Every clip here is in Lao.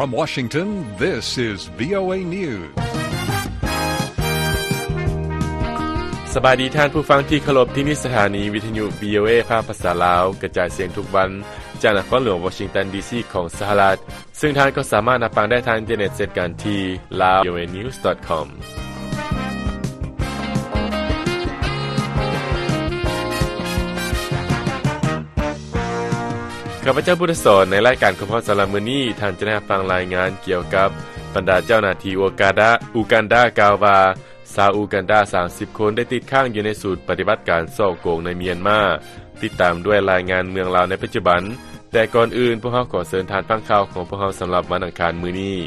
From Washington, this is VOA News. ສະບາຍດີທ່ານຜູ້ຟັງທີ່ເຄົາລົບ, ທີ່ນີ້ສະຖານີວິທະຍຸ VOA ພາກພາສາລາວ ກະຈາຍສຽງທຸກວັນ ຈາກນະຄອນຫຼວງວໍຊິງຕັນ ດີຊີ ຂອງສະຫະລັດ, ເຊິ່ງທ່ານກໍສາມາດຮັບຟັງໄດ້ທາງອິນເຕີເນັດເຊັ່ນກັນທີ່ lawvoanews.com. ຂ້າພະເຈົ້າ ພຸດທະສອນ, ໃນລາຍການຂອງພວກເຮົາສຳລັບມື້ນີ້, ທ່ານຈະໄດ້ຮັບຟັງລາຍງານກ່ຽວກັບບັນດາເຈົ້າໜ້າທີ່ອູກາດາ ອູກັນດາ ກ່າວວ່າ ຊາວອູກັນດາ ສາມສິບຄົນ ໄດ້ຕິດຄ້າງຢູ່ໃນສູນປະຕິບັດການສໍ້ໂກງໃນມຽນມາ, ຕິດຕາມດ້ວຍລາຍງານເມືອງລາວໃນປັດຈຸບັນ. ແຕ່ກ່ອນອື່ນ, ພວກເຮົາຂໍເຊີນທ່ານຟັງຂ່າວຂອງພວກເຮົາສຳລັບວັນອັງຄານມື້ນີ້.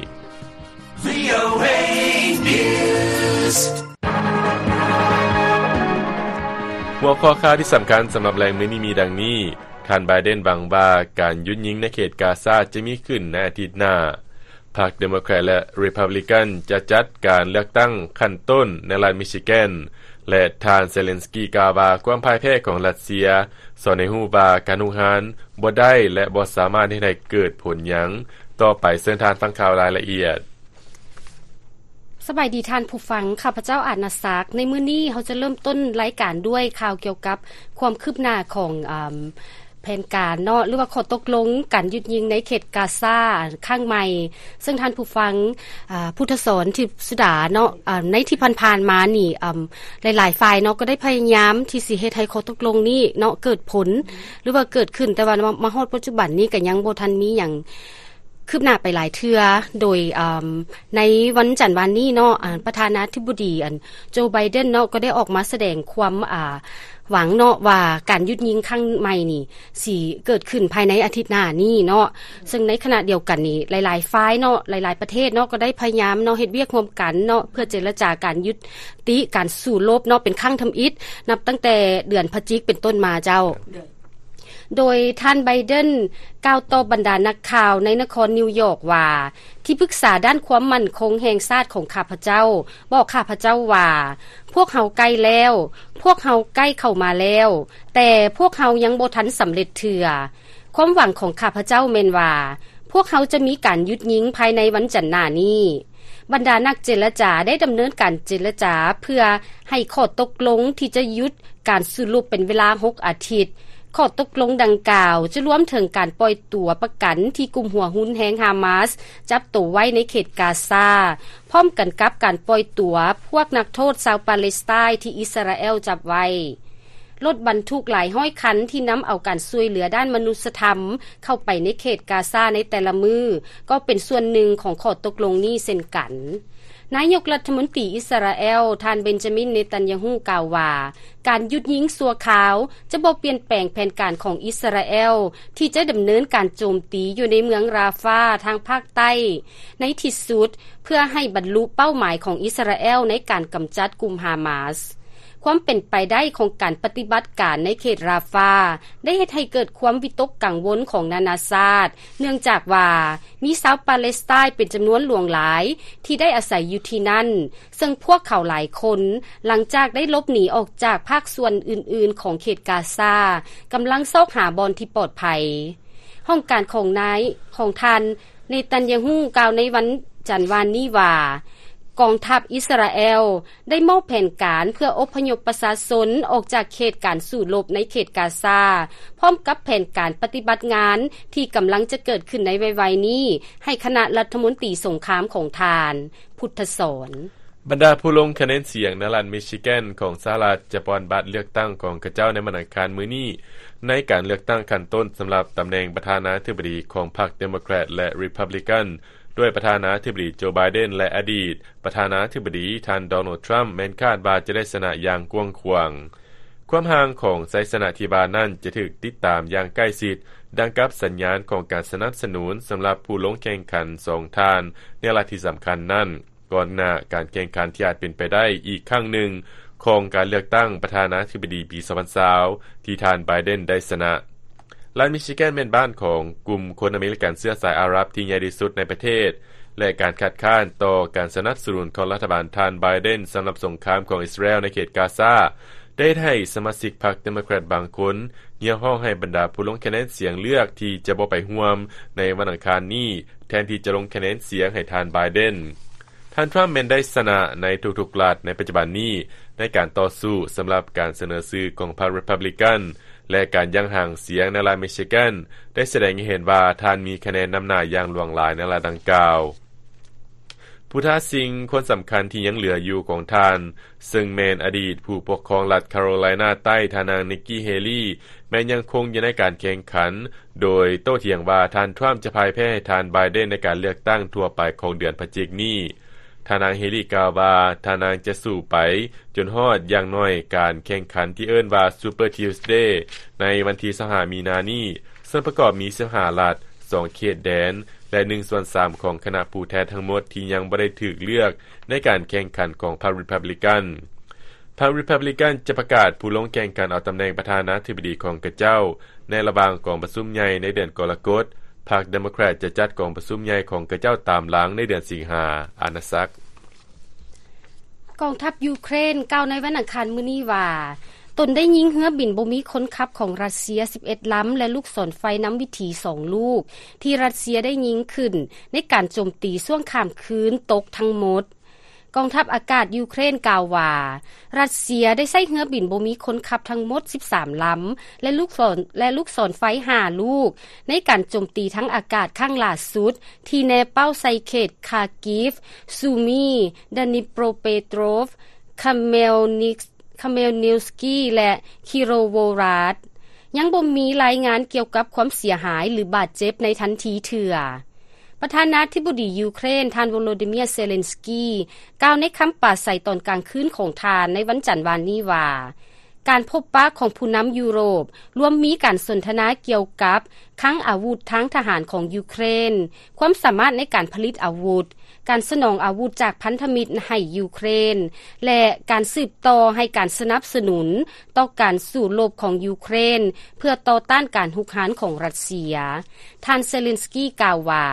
VOA News. ຫົວຂໍ້ຂ່າວທີ່ສຳຄັນສຳລັບແລງມື້ນີ້ມີດັ່ງນີ້. ທ່ານ ໄບເດັນ ຫວັງວ່າການຢຸດຍິງໃນເຂດກາຊາຈະມີຂຶ້ນໃນອາທິດໜ້າ. ພັກເດໂມແຄຣດ ແລະ ຣີພັບລິກັນ ຈະຈັດການເລືອກຕັ້ງຂັ້ນຕົ້ນໃນລັດມິຊິແກນ ແລະ ທ່ານ ເຊເລັນສກີ ກ່າວວ່າຄວາມພ່າຍແພ້ຂອງຣັດເຊຍ ສອນໃຫ້ຮູ້ວ່າການຮຸກຮານບໍ່ໄດ້ ແລະ ບໍ່ສາມາດເຮັດໃຫ້ເກີດຜົນຫຍັງ. ຕໍ່ໄປເຊີນທ່ານຟັງຂ່າວລາຍລະອຽດ. ສະບາຍດີທ່ານຜູ້ຟັງ, ຂ້າພະເຈົ້າ ອາດນາສັກ. ໃນມື້ນີ້ເຮົາຈະເລີ່ມຕົ້ນລາຍການດ້ວຍຂ່າວກ່ຽວກັບຄວາມຄືບໜ້າຂອງ ອາ ແຜນການເນາະ ຫຼືວ່າຂໍ້ຕົກລົງການຢຸດຍິງໃນເຂດກາຊາຄັ້ງໃໝ່, ເຊິ່ງທ່ານຜູ້ຟັງ ອາ ພຸດທະສອນ ທິບສຸດາ ເນາະ ອາ ໃນທີ່ຜ່ານໆມານີ້ ອາ ຫຼາຍໆຝ່າຍເນາະ ກໍໄດ້ພະຍາຍາມທີ່ຊິເຮັດໃຫ້ຂໍ້ຕົກລົງນີ້ເນາະ ເກີດຜົນ ຫຼືວ່າເກີດຂຶ້ນ, ແຕ່ວ່າມາ ມາຮອດປັດຈຸບັນນີ້ກໍຍັງບໍ່ທັນມີຫຍັງ ຄືບໜ້າໄປຫຼາຍເທື່ອ. ໂດຍ ອາ ໃນວັນຈັນວານນີ້ເນາະ ອາ ປະທານາທິບໍດີ ອັນ ໂຈ ໄບເດັນ ເນາະ ກໍໄດ້ອອກມາສະແດງຄວາມ ອາ ຫວັງເນາະ ວ່າການຢຸດຍິງຄັ້ງໃໝ່ນີ້ ຊິເກີດຂຶ້ນພາຍໃນອາທິດໜ້ານີ້ເນາະ. ເຊິ່ງໃນຂະນະດຽວກັນນີ້ ຫຼາຍໆຝ່າຍເນາະ ຫຼາຍໆປະເທດເນາະ ກໍໄດ້ພະຍາຍາມເນາະ ເຮັດວຽກຮ່ວມກັນເນາະ ເພື່ອເຈລະຈາການຢຸດຕິການສູ້ລົບເນາະ ເປັນຄັ້ງທຳອິດ ນັບຕັ້ງແຕ່ເດືອນພະຈິກເປັນຕົ້ນມາເຈົ້າ. ໂດຍທ່ານ ໄບເດັນ ກ່າວຕໍ່ບັນດານັກຂ່າວໃນນະຄອນນິວຢອກວ່າ ທີ່ປຶກສາດ້ານຄວາມໝັ້ນຄົງແຫ່ງຊາດຂອງຂ້າພະເຈົ້າ ບອກຂ້າພະເຈົ້າວ່າ ພວກເຮົາໃກ້ແລ້ວ, ພວກເຮົາໃກ້ເຂົ້າມາແລ້ວ, ແຕ່ພວກເຮົາຍັງບໍ່ທັນສຳເລັດເທື່ອ. ຄວາມຫວັງຂອງຂ້າພະເຈົ້າແມ່ນວ່າ ພວກເຮົາຈະມີການຢຸດຍິງພາຍໃນວັນຈັນໜ້ານີ້. ບັນດານັກເຈລະຈາໄດ້ດຳເນີນການເຈລະຈາເພື່ອໃຫ້ຂໍ້ຕົກລົງທີ່ຈະຢຸດການສູ້ລົບເປັນເວລາຫົກອາທິດ. ຂໍ້ຕົກລົງດັ່ງກ່າວຈະລວມເຖິງການປ່ອຍຕົວປະກັນທີ່ກຸ່ມຫົວຮຸນແຮງຮາມາສຈັບໂຕໄວ້ໃນເຂດກາຊາ, ພ້ອມກັນກັບການປ່ອຍຕົວພວກນັກໂທດຊາວປາເລັສໄຕທີ່ອິດສະຣາແອລຈັບໄວ້. ລົດບັນທຸກຫຼາຍຮ້ອຍຄັນທີ່ນຳເອົາການຊ່ວຍເຫຼືອດ້ານມະນຸດສະທຳເຂົ້າໄປໃນເຂດກາຊາໃນແຕ່ລະມື້ ກໍເປັນສ່ວນໜຶ່ງຂອງຂໍ້ຕົກລົງນີ້ເຊັ່ນກັນ. ນາຍົກລັດຖະມົນຕີອິດສະຣາແອລ ທ່ານ ເບັນຈາມິນ ເນຕັນຍາຮູ້ ກ່າວວ່າ ການຢຸດຍິງຊົ່ວຄາວຈະບໍ່ປ່ຽນແປງແຜນການຂອງອິດສະຣາແອລທີ່ຈະດຳເນີນການໂຈມຕີຢູ່ໃນເມືອງຣາຟາທາງພາກໃຕ້ໃນທີ່ສຸດ ເພື່ອໃຫ້ບັນລຸເປົ້າໝາຍຂອງອິດສະຣາແອລໃນການກຳຈັດກຸ່ມຮາມາສ. ຄວາມເປັນໄປໄດ້ຂອງການປະຕິບັດການໃນເຂດຣາຟາ ໄດ້ເຮັດໃຫ້ເກີດຄວາມວິຕົກກັງວົນຂອງນານາຊາດ, ເນື່ອງຈາກວ່າມີຊາວປາເລັສໄຕເປັນຈຳນວນຫຼວງຫຼາຍທີ່ໄດ້ອາໄສຢູ່ທີ່ນັ້ນ, ເຊິ່ງພວກເຂົາຫຼາຍຄົນ, ຫຼັງຈາກໄດ້ຫຼົບໜີອອກຈາກພາກສ່ວນອື່ນໆຂອງເຂດກາຊາ, ກຳລັງຊອກຫາບ່ອນທີ່ປອດໄພ. ຫ້ອງການຂອງນາຍ, ຂອງທ່ານ ເນຕັນຍາຮູ້ ກ່າວໃນວັນຈັນວານນີ້ວ່າ ກອງທັບອິດສະຣາແອລໄດ້ມອບແຜນການເພື່ອອົບພະຍົບປະຊາຊົນອອກຈາກເຂດການສູ້ລົບໃນເຂດກາຊາ, ພ້ອມກັບແຜນການປະຕິບັດງານທີ່ກຳລັງຈະເກີດຂຶ້ນໃນໄວໆນີ້ ໃຫ້ຄະນະລັດຖະມົນຕີສົງຄາມຂອງທ່ານ ພຸດທະສອນ. ບັນດາຜູ້ລົງຄະແນນສຽງໃນລັດມິຊິແກນຂອງສະຫະລັດ ຈະປ່ອນບັດເລືອກຕັ້ງຂອງເຂົາເຈົ້າໃນວັນອັງຄານມື້ນີ້ ໃນການເລືອກຕັ້ງຂັ້ນຕົ້ນສຳລັບຕຳແໜ່ງປະທານາທິບໍດີຂອງພັກເດໂມແຄຣດ ແລະ ຣີພັບລິກັນ ໂດຍປະທານາທິບໍດີໂຈ ໄບເດັນ ແລະ ອະດີດປະທານາທິບໍດີທ່ານ ໂດນັລ ທຣຳ ແມ່ນຄາດວ່າຈະໄດ້ຊະນະຢ່າງກວ້າງຂວາງ. ຄວາມຫ່າງຂອງໄຊຊະນະທີ່ວ່ານັ້ນຈະຖືກຕິດຕາມຢ່າງໃກ້ຊິດ, ດັ່ງກັບສັນຍານຂອງການສະໜັບສະໜູນສຳລັບຜູ້ລົງແຂ່ງຂັນສອງທ່ານໃນລັດທີ່ສຳຄັນນັ້ນ, ກ່ອນໜ້າການແຂ່ງຂັນທີ່ອາດເປັນໄປໄດ້ອີກຄັ້ງໜຶ່ງຂອງການເລືອກຕັ້ງປະທານາທິບໍດີປີສອງພັນຊາວ ທີ່ທ່ານ ໄບເດັນ ໄດ້ຊະນະ. ລັດມິຊິແກນແມ່ນບ້ານຂອງກຸ່ມຄົນອາເມລິກັນເຊື້ອສາຍອາຣັບທີ່ໃຫຍ່ທີ່ສຸດໃນປະເທດ, ແລະ ການຄັດຄ້ານຕໍ່ການສະໜັບສະໜູນຂອງລັດຖະບານທ່ານ ໄບເດັນ ສຳລັບສົງຄາມຂອງອິດສະຣາແອລໃນເຂດກາຊາ ໄດ້ເຮັດໃຫ້ສະມາຊິກພັກເດໂມແຄຣດບາງຄົນ ຮຽກຮ້ອງໃຫ້ບັນດາຜູ້ລົງຄະແນນສຽງເລືອກທີ່ຈະບໍ່ໄປຮ່ວມໃນວັນອັງຄານນີ້ ແທນທີ່ຈະລົງຄະແນນສຽງໃຫ້ທ່ານ Biden. ທ່ານ Trump ແມ່ນໄດ້ຊະນະໃນທຸກໆລັດໃນປັດຈຸບັນນີ້ ໃນການຕໍ່ສູ້ສຳລັບການສະເໜີຊື່ຂອງພັກ Republican ແລະ ການຢ່າງຫາງສຽງໃນລັດ Michigan ໄດ້ສະແດງໃຫ້ເຫັນວ່າທ່ານມີຄະແນນນຳໜ້າຢ່າງຫຼວງຫຼາຍໃນລັດດັ່ງກ່າວ. ຜູ້ທ້າຊິງຄົນສຳຄັນທີ່ຍັງເຫຼືອຢູ່ຂອງທ່ານ ເຊິ່ງແມ່ນອະດີດຜູ້ປົກຄອງລັດ Carolina ໃຕ້ ທ່ານນາງ Nikki Haley ແມ່ນຍັງຄົງຢູ່ໃນການແຂ່ງຂັນ ໂດຍໂຕ້ຖຽງວ່າທ່ານ Trump ຈະພ່າຍແພ້ໃຫ້ທ່ານ Biden ໃນການເລືອກຕັ້ງທົ່ວໄປຂອງເດືອນພະຈິກນີ້. ທ່ານນາງ Haley ກ່າວວ່າ ທ່ານນາງຈະສູ້ໄປຈົນຮອດຢ່າງໜ້ອຍການແຂ່ງຂັນທີ່ເອີ້ນວ່າ Super Tuesday ໃນວັນທີຊາວຫ້າ ມີນານີ້ ເຊິ່ງປະກອບມີສິບຫ້າລັດ, ສອງເຂດແດນ ແລະ ໜຶ່ງສ່ວນສາມຂອງຄະນະຜູ້ແທນທັງໝົດທີ່ຍັງບໍ່ໄດ້ຖືກເລືອກໃນການແຂ່ງຂັນຂອງພັກ Republican. ພັກ Republican ຈະປະກາດຜູ້ລົງແຂ່ງຂັນເອົາຕຳແໜ່ງປະທານາທິບໍດີຂອງຂະເຈົ້າ ໃນລະຫວ່າງກອງປະຊຸມໃຫຍ່ໃນເດືອນກໍລະກົດ, ພັກ Democrat ຈະຈັດກອງປະຊຸມໃຫຍ່ຂອງຂະເຈົ້າຕາມຫຼັງໃນເດືອນສິງຫາ. ອານາສັກ. ກອງທັບຢູເຄຣນກ່າວໃນວັນອັງຄານມື້ນີ້ວ່າ ຕົນໄດ້ຍິງເຮືອບິນບໍ່ມີຄົນຂັບຂອງຣັດເຊຍສິບເອັດລຳ ແລະ ລູກສອນໄຟນຳວິຖີສອງລູກ ທີ່ຣັດເຊຍໄດ້ຍິງຂຶ້ນໃນການໂຈມຕີຊ່ວງຂ້າມຄືນຕົກທັງໝົດ. ກອງທັບອາກາດຢູເຄຣນກ່າວວ່າ ຣັດເຊຍໄດ້ໃຊ້ເຮືອບິນບໍ່ມີຄົນຂັບທັງໝົດສິບສາມລຳ ແລະ ລູກສອນ ແລະ ລູກສອນໄຟຫ້າລູກ ໃນການໂຈມຕີທາງອາກາດຄັ້ງຫຼ້າສຸດ ທີ່ແນເປົ້າໃສ່ເຂດ Kharkiv, Sumy, Dnipropetrovsk, Khmelnyts-, Khmelnytskyi ແລະ Kirovohrad. ຍັງບໍ່ມີລາຍງານກ່ຽວກັບຄວາມເສຍຫາຍ ຫຼື ບາດເຈັບໃນທັນທີເທື່ອ. ປະທານາທິບໍດີຢູເຄຣນ ທ່ານ ໂວໂລດີເມຍ ເຊເລັນສກີ ກ່າວໃນຄຳປາໄສຕອນກາງຄືນຂອງທ່ານໃນວັນຈັນວານນີ້ວ່າ ການພົບປະຂອງຜູ້ນຳຢູໂຣບ ລວມມີການສົນທະນາກ່ຽວກັບຄັງອາວຸດທາງທະຫານຂອງຢູເຄຣນ, ຄວາມສາມາດໃນການຜະລິດອາວຸດ, ການສະໜອງອາວຸດຈາກພັນທະມິດໃຫ້ຢູເຄຣນ ແລະ ການສືບຕໍ່ໃຫ້ການສະໜັບສະໜູນຕໍ່ການສູ້ລົບຂອງຢູເຄຣນ ເພື່ອຕໍ່ຕ້ານການຮຸກຮານຂອງຣັດເຊຍ. ທ່ານເຊເລັນສກີກ່າວວ່າ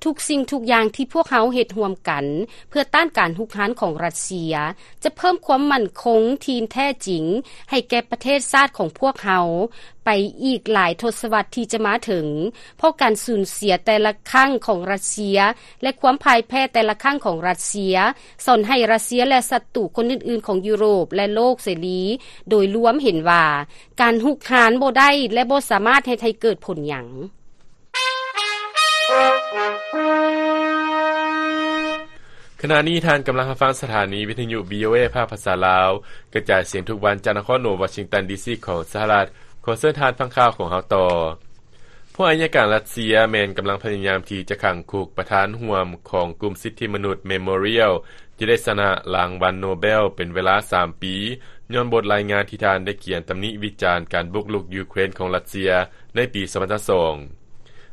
ທຸກສິ່ງທຸກຢ່າງທີ່ພວກເຮົາເຮັດຮ່ວມກັນເພື່ອຕ້ານການຮຸກຮານຂອງຣັດເຊຍ ຈະເພີ່ມຄວາມໝັ້ນຄົງທີ່ແທ້ຈິງໃຫ້ແກ່ປະເທດຊາດຂອງພວກເຮົາ ໄປອີກຫຼາຍທົດສະວັດທີ່ຈະມາເຖິງ, ເພາະການສູນເສຍແຕ່ລະຄັ້ງຂອງຣັດເຊຍ ແລະ ຄວາມພ່າຍແພ້ແຕ່ລະຄັ້ງຂອງຣັດເຊຍ ສອນໃຫ້ຣັດເຊຍ ແລະ ສັດຕູຄົນອື່ນໆຂອງຢູໂຣບ ແລະ ໂລກເສລີໂດຍລວມເຫັນວ່າ ການຮຸກຮານບໍ່ໄດ້ ແລະ ບໍ່ສາມາດເຮັດໃຫ້ເກີດຜົນຫຍັງ. ຂະນະນີ້ທ່ານກຳລັງຮັບຟັງສະຖານີວິທະຍຸ ວີໂອເອ ພາກພາສາລາວ ກະຈາຍສຽງທຸກວັນຈາກນະຄອນຫຼວງວໍຊິງຕັນ ດີຊີ ຂອງສະຫະລັດ. ຂໍເຊີນທ່ານຟັງຂ່າວຂອງເຮົາຕໍ່. ພວກອັຍການຣັດເຊຍແມ່ນກຳລັງພະຍາຍາມທີ່ຈະຂັງຄຸກປະທານຮ່ວມຂອງກຸ່ມສິດທິມະນຸດ Memorial ທີ່ໄດ້ຊະນະລາງວັນໂນເບລເປັນເວລາສາມປີ ຍ້ອນບົດລາຍງານທີ່ທ່ານໄດ້ຂຽນຕຳໜິວິຈານການບຸກລຸກຢູເຄຣນຂອງຣັດເຊຍໃນປີສອງພັນຊາວສອງ.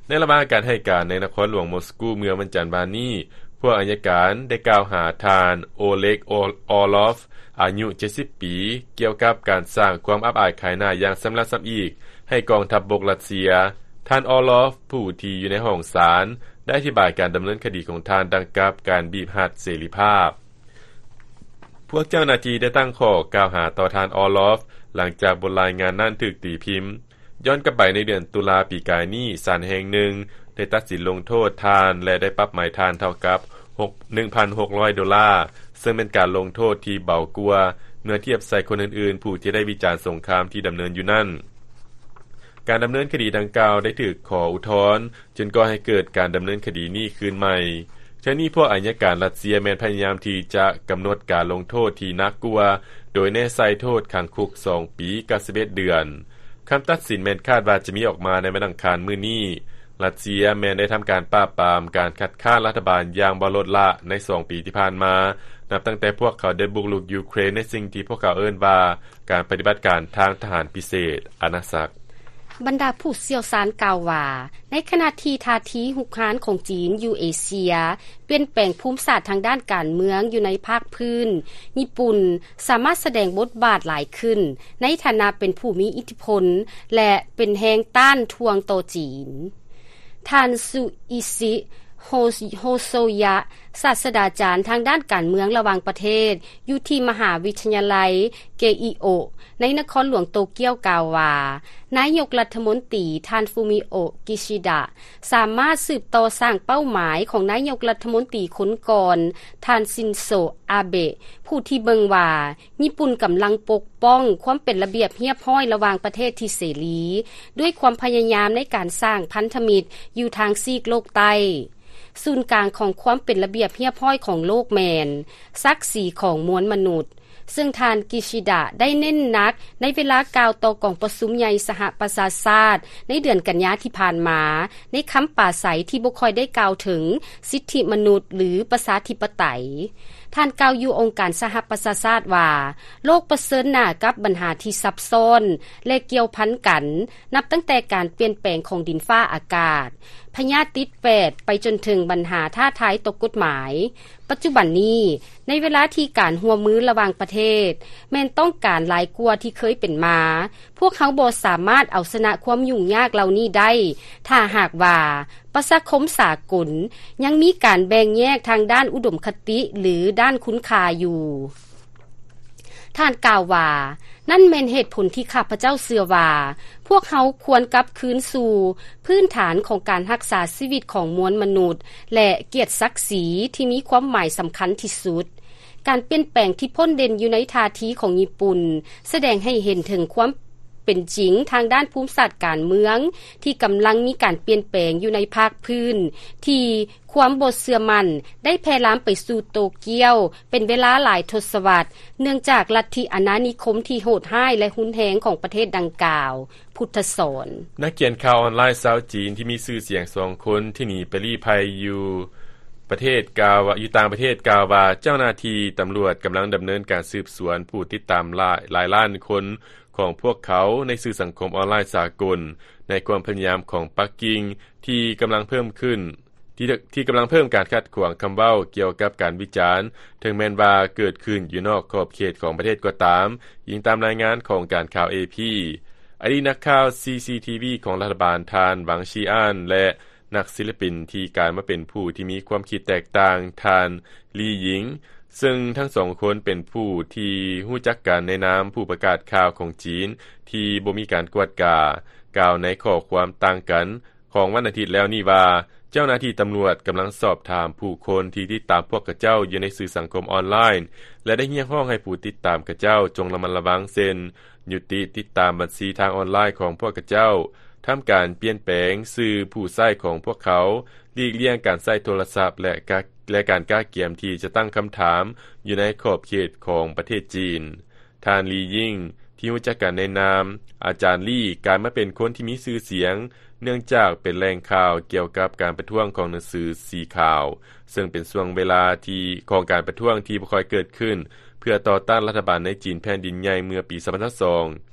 ໃນລະຫວ່າງການໃຫ້ການໃນນະຄອນຫຼວງມົສກູເມື່ອວັນຈັນວານນີ້, ພວກອັຍການໄດ້ກ່າວຫາທ່ານ ໂອເລັກ ອອລອຟ ອາຍຸເຈັດສິບປີ ກ່ຽວກັບການສ້າງຄວາມອັບອາຍຂາຍໜ້າຢ່າງຊຳລະຊຳອີກໃຫ້ກອງທັບບົກຣັດເຊຍ. ທ່ານ ອອລອຟ ຜູ້ທີ່ຢູ່ໃນຫ້ອງສານ ໄດ້ອະທິບາຍການດຳເນີນຄະດີຂອງທ່ານດັ່ງກັບການບີບຮັດເສລີພາບ. ພວກເຈົ້າໜ້າທີ່ໄດ້ຕັ້ງຂໍ້ກ່າວຫາຕໍ່ທ່ານ ອອລອຟ ຫຼັງຈາກບົດລາຍງານນັ້ນຖືກຕີພິມ. ຍ້ອນກັບໄປໃນເດືອນຕຸລາປີກາຍນີ້, ສານແຫ່ງໜຶ່ງໄດ້ຕັດສິນລົງໂທດທ່ານ ແລະ ໄດ້ປັບໃໝທ່ານເທົ່າກັບຫົກ ໜຶ່ງພັນຫົກຮ້ອຍໂດລາ, ເຊິ່ງເປັນການລົງໂທດທີ່ເບົາກວ່າເມື່ອທຽບໃສ່ຄົນອື່ນໆ ຜູ້ທີ່ໄດ້ວິຈານສົງຄາມທີ່ດຳເນີນຢູ່ນັ້ນ. ການດຳເນີນຄະດີດັ່ງກ່າວໄດ້ຖືກຂໍອຸທອນ ຈຶ່ງກໍ່ໃຫ້ເກີດການດຳເນີນຄະດີນີ້ຄືນໃໝ່. ເທື່ອນີ້ພວກອັຍການຣັດເຊຍແມ່ນພະຍາຍາມທີ່ຈະກຳນົດການລົງໂທດທີ່ໜັກກວ່າ, ໂດຍແນໃສ່ໂທດຂັງຄຸກສອງປີກັບສິບເອັດເດືອນ. ຄຳຕັດສິນແມ່ນຄາດວ່າຈະມີອອກມາໃນວັນອັງຄານມື້ນີ້. ຣັດເຊຍແມ່ນໄດ້ທຳການປາບປາມການຄັດຄ້ານລັດຖະບານຢ່າງບໍ່ລົດລະໃນສອງປີທີ່ຜ່ານມາ, ນັບຕັ້ງແຕ່ພວກເຂົາໄດ້ບຸກລຸກຢູເຄຣນໃນສິ່ງທີ່ພວກເຂົາເອີ້ນວ່າ ການປະຕິບັດການທາງທະຫານພິເສດອານາຈັກ. ບັນດາຜູ້ຊ່ຽວຊານກ່າວວ່າ ໃນຂະນະທີ່ທ່າທີຮຸກຮານຂອງຈີນຢູ່ເອເຊຍປ່ຽນແປງພູມສາດທາງດ້ານການເມືອງຢູ່ໃນພາກພື້ນ, ຍີ່ປຸ່ນສາມາດສະແດງບົດບາດຫຼາຍຂຶ້ນໃນຖານະເປັນຜູ້ມີອິດທິພົນ ແລະ ເປັນແຮງຕ້ານທວງຕໍ່ຈີນ. ທ່ານ ຊູອິຊິ ໂຮ ໂຮໂຊຍະ ສາດສະດາຈານທາງດ້ານການເມືອງລະຫວ່າງປະເທດ ຢູ່ທີ່ມະຫາວິທະຍາໄລ ເກອິໂອະ ໃນນະຄອນຫຼວງໂຕກຽວ ກ່າວວ່າ ນາຍົກລັດຖະມົນຕີ ທ່ານ ຟູມິໂອະ ກິຊິດະ ສາມາດສືບຕໍ່ສ້າງເປົ້າໝາຍຂອງນາຍົກລັດຖະມົນຕີຄົນກ່ອນ ທ່ານ ຊິນໂຊ ອາເບະ ຜູ້ທີ່ເບິ່ງວ່າ ຍີ່ປຸ່ນກຳລັງປົກປ້ອງຄວາມເປັນລະບຽບຮຽບຮ້ອຍລະຫວ່າງປະເທດທີ່ເສລີ ດ້ວຍຄວາມພະຍາຍາມໃນການສ້າງພັນທະມິດຢູ່ທາງຊີກໂລກໃຕ້. ສູນກາງຂອງຄວາມເປັນລະບຽບຮຽບຮ້ອຍຂອງໂລກແມ່ນສັກສີຂອງມວນມະນຸດ, ເຊິ່ງທ່ານ ກິຊິດະ ໄດ້ເນັ້ນໜັກໃນເວລາກ່າວຕໍ່ກອງປະຊຸມໃຫຍ່ສະຫະປະຊາຊາດໃນເດືອນກັນຍາທີ່ຜ່ານມາ ໃນຄຳປາໄສທີ່ບໍ່ຄ່ອຍໄດ້ກ່າວເຖິງສິດທິມະນຸດ ຫຼື ປະຊາທິປະໄຕ. ທ່ານກ່າວຢູ່ອົງການສະຫະປະຊາຊາດວ່າ ໂລກປະເຊີນໜ້າກັບບັນຫາທີ່ຊັບຊ້ອນ ແລະ ກ່ຽວພັນກັນ, ນັບຕັ້ງແຕ່ການປ່ຽນແປງຂອງດິນຟ້າອາກາດ, ພະຍາດຕິດແປດ ໄປຈົນເຖິງບັນຫາທ້າທາຍຕໍ່ກົດໝາຍ. ປັດຈຸບັນນີ້, ໃນເວລາທີ່ການຮ່ວມມືລະຫວ່າງປະເທດ ແມ່ນຕ້ອງການຫຼາຍກວ່າທີ່ເຄີຍເປັນມາ, ພວກເຮົາບໍ່ສາມາດເອົາຊະນະຄວາມຫຍຸ້ງຍາກເຫຼົ່ານີ້ໄດ້ ຖ້າຫາກວ່າປະຊາຄົມສາກົນຍັງມີການແບ່ງແຍກທາງດ້ານອຸດົມຄະຕິ ຫຼື ດ້ານຄຸນຄ່າຢູ່. ທ່ານກ່າວວ່າ, ນັ້ນແມ່ນເຫດຜົນທີ່ຂ້າພະເຈົ້າເຊື່ອວ່າ ພວກເຮົາຄວນກັບຄືນສູ່ພື້ນຖານຂອງການຮັກສາຊີວິດຂອງມວນມະນຸດ ແລະ ກຽດສັກສີທີ່ມີຄວາມໝາຍສຳຄັນທີ່ສຸດ. ການປ່ຽນແປງທີ່ພົ້ນເດັ່ນຢູ່ໃນທ່າທີຂອງຍີ່ປຸ່ນ ສະແດງໃຫ້ເຫັນເຖິງຄວາມເປັນຈິງທາງດ້ານພູມສາດການເມືອງ ທີ່ກຳລັງມີການປ່ຽນແປງຢູ່ໃນພາກພື້ນ ທີ່ຄວາມບໍ່ເຊື່ອໝັ້ນໄດ້ແຜ່ລາມໄປສູ່ໂຕກຽວ ເປັນເວລາຫຼາຍທົດສະວັດ ເນື່ອງຈາກລັດທິອານານິຄົມທີ່ໂຫດຮ້າຍ ແລະ ຮຸນແຮງຂອງປະເທດດັ່ງກ່າວ. ພຸດທະສອນ. ນັກຂຽນຂ່າວອອນລາຍຊາວຈີນທີ່ມີຊື່ສຽງສອງຄົນທີ່ໜີໄປລີ້ໄພຢູ່ປະເທດ ກ່າວວ່າ ຢູ່ຕ່າງປະເທດ ກ່າວວ່າເຈົ້າໜ້າທີ່ຕຳຫຼວດກຳລັງດຳເນີນການສືບສວນຜູ້ຕິດຕາມຫຼາຍ ຫຼາຍລ້ານຄົນຂອງພວກເຂົາໃນສື່ສັງຄົມອອນລາຍສາກົນ ໃນຄວາມພະຍາຍາມຂອງປັກກິ່ງທີ່ກຳລັງເພີ່ມຂຶ້ນ ທີ່ ທີ່ກຳລັງເພີ່ມການຂັດຂວາງຄຳເວົ້າກ່ຽວກັບການວິຈານ, ເຖິງແມ່ນວ່າເກີດຂຶ້ນຢູ່ນອກຂອບເຂດຂອງປະເທດກໍຕາມ, ອີງຕາມລາຍງານຂອງການຂ່າວ ເອ ພີ. ອະດີດນັກຂ່າວ ຊີ ຊີ ທີ ວີ ຂອງລັດຖະບານ ທ່ານ ຫວັງ ຊີອານ ແລະ ນັກສິລະປິນທີ່ກາຍມາເປັນຜູ້ທີ່ມີຄວາມຄິດແຕກຕ່າງ ທ່ານ ລີ ຍິງ, ເຊິ່ງທັງສອງຄົນເປັນຜູ້ທີ່ຮູ້ຈັກກັນໃນນາມຜູ້ປະກາດຂ່າວຂອງຈີນທີ່ບໍ່ມີການກວດກາ, ກ່າວໃນຂໍ້ຄວາມຕ່າງກັນ ຂອງວັນອາທິດແລ້ວນີ້ວ່າ ເຈົ້າໜ້າທີ່ຕຳຫຼວດກຳລັງສອບຖາມຜູ້ຄົນທີ່ຕິດຕາມພວກຂະເຈົ້າຢູ່ໃນສື່ສັງຄົມອອນລາຍ ແລະ ໄດ້ຮຽກຮ້ອງໃຫ້ຜູ້ຕິດຕາມຂະເຈົ້າຈົ່ງລະມັດລະວັງ ເຊັ່ນ ຍຸຕິຕິດຕາມບັນຊີທາງອອນລາຍຂອງພວກຂະເຈົ້າ, ທຳການປ່ຽນແປງຊື່ຜູ້ໃຊ້ຂອງພວກເຂົາ, ຫຼີກລ່ຽງການໃຊ້ໂທລະສັບ ແລະ ກະ ແລະ ການກະກຽມທີ່ຈະຕັ້ງຄຳຖາມຢູ່ໃນຂອບເຂດຂອງປະເທດຈີນ. ທ່ານ ລີ ຍິງ ທີ່ຮູ້ຈັກກັນໃນນາມອາຈານລີ ກາຍມາເປັນຄົນທີ່ມີຊື່ສຽງ ເນື່ອງຈາກເປັນແຫຼ່ງຂ່າວກ່ຽວກັບການປະທ້ວງຂອງໜັງສືສີຂາວ, ເຊິ່ງເປັນຊ່ວງເວລາທີ່ ຂອງການປະທ້ວງທີ່ບໍ່ຄ່ອຍເກີດຂຶ້ນ ເພື່ອຕໍ່ຕ້ານລັດຖະບານໃນຈີນແຜ່ນດິນໃຫຍ່ເມື່ອປີສອງພັນຊາວສອງ.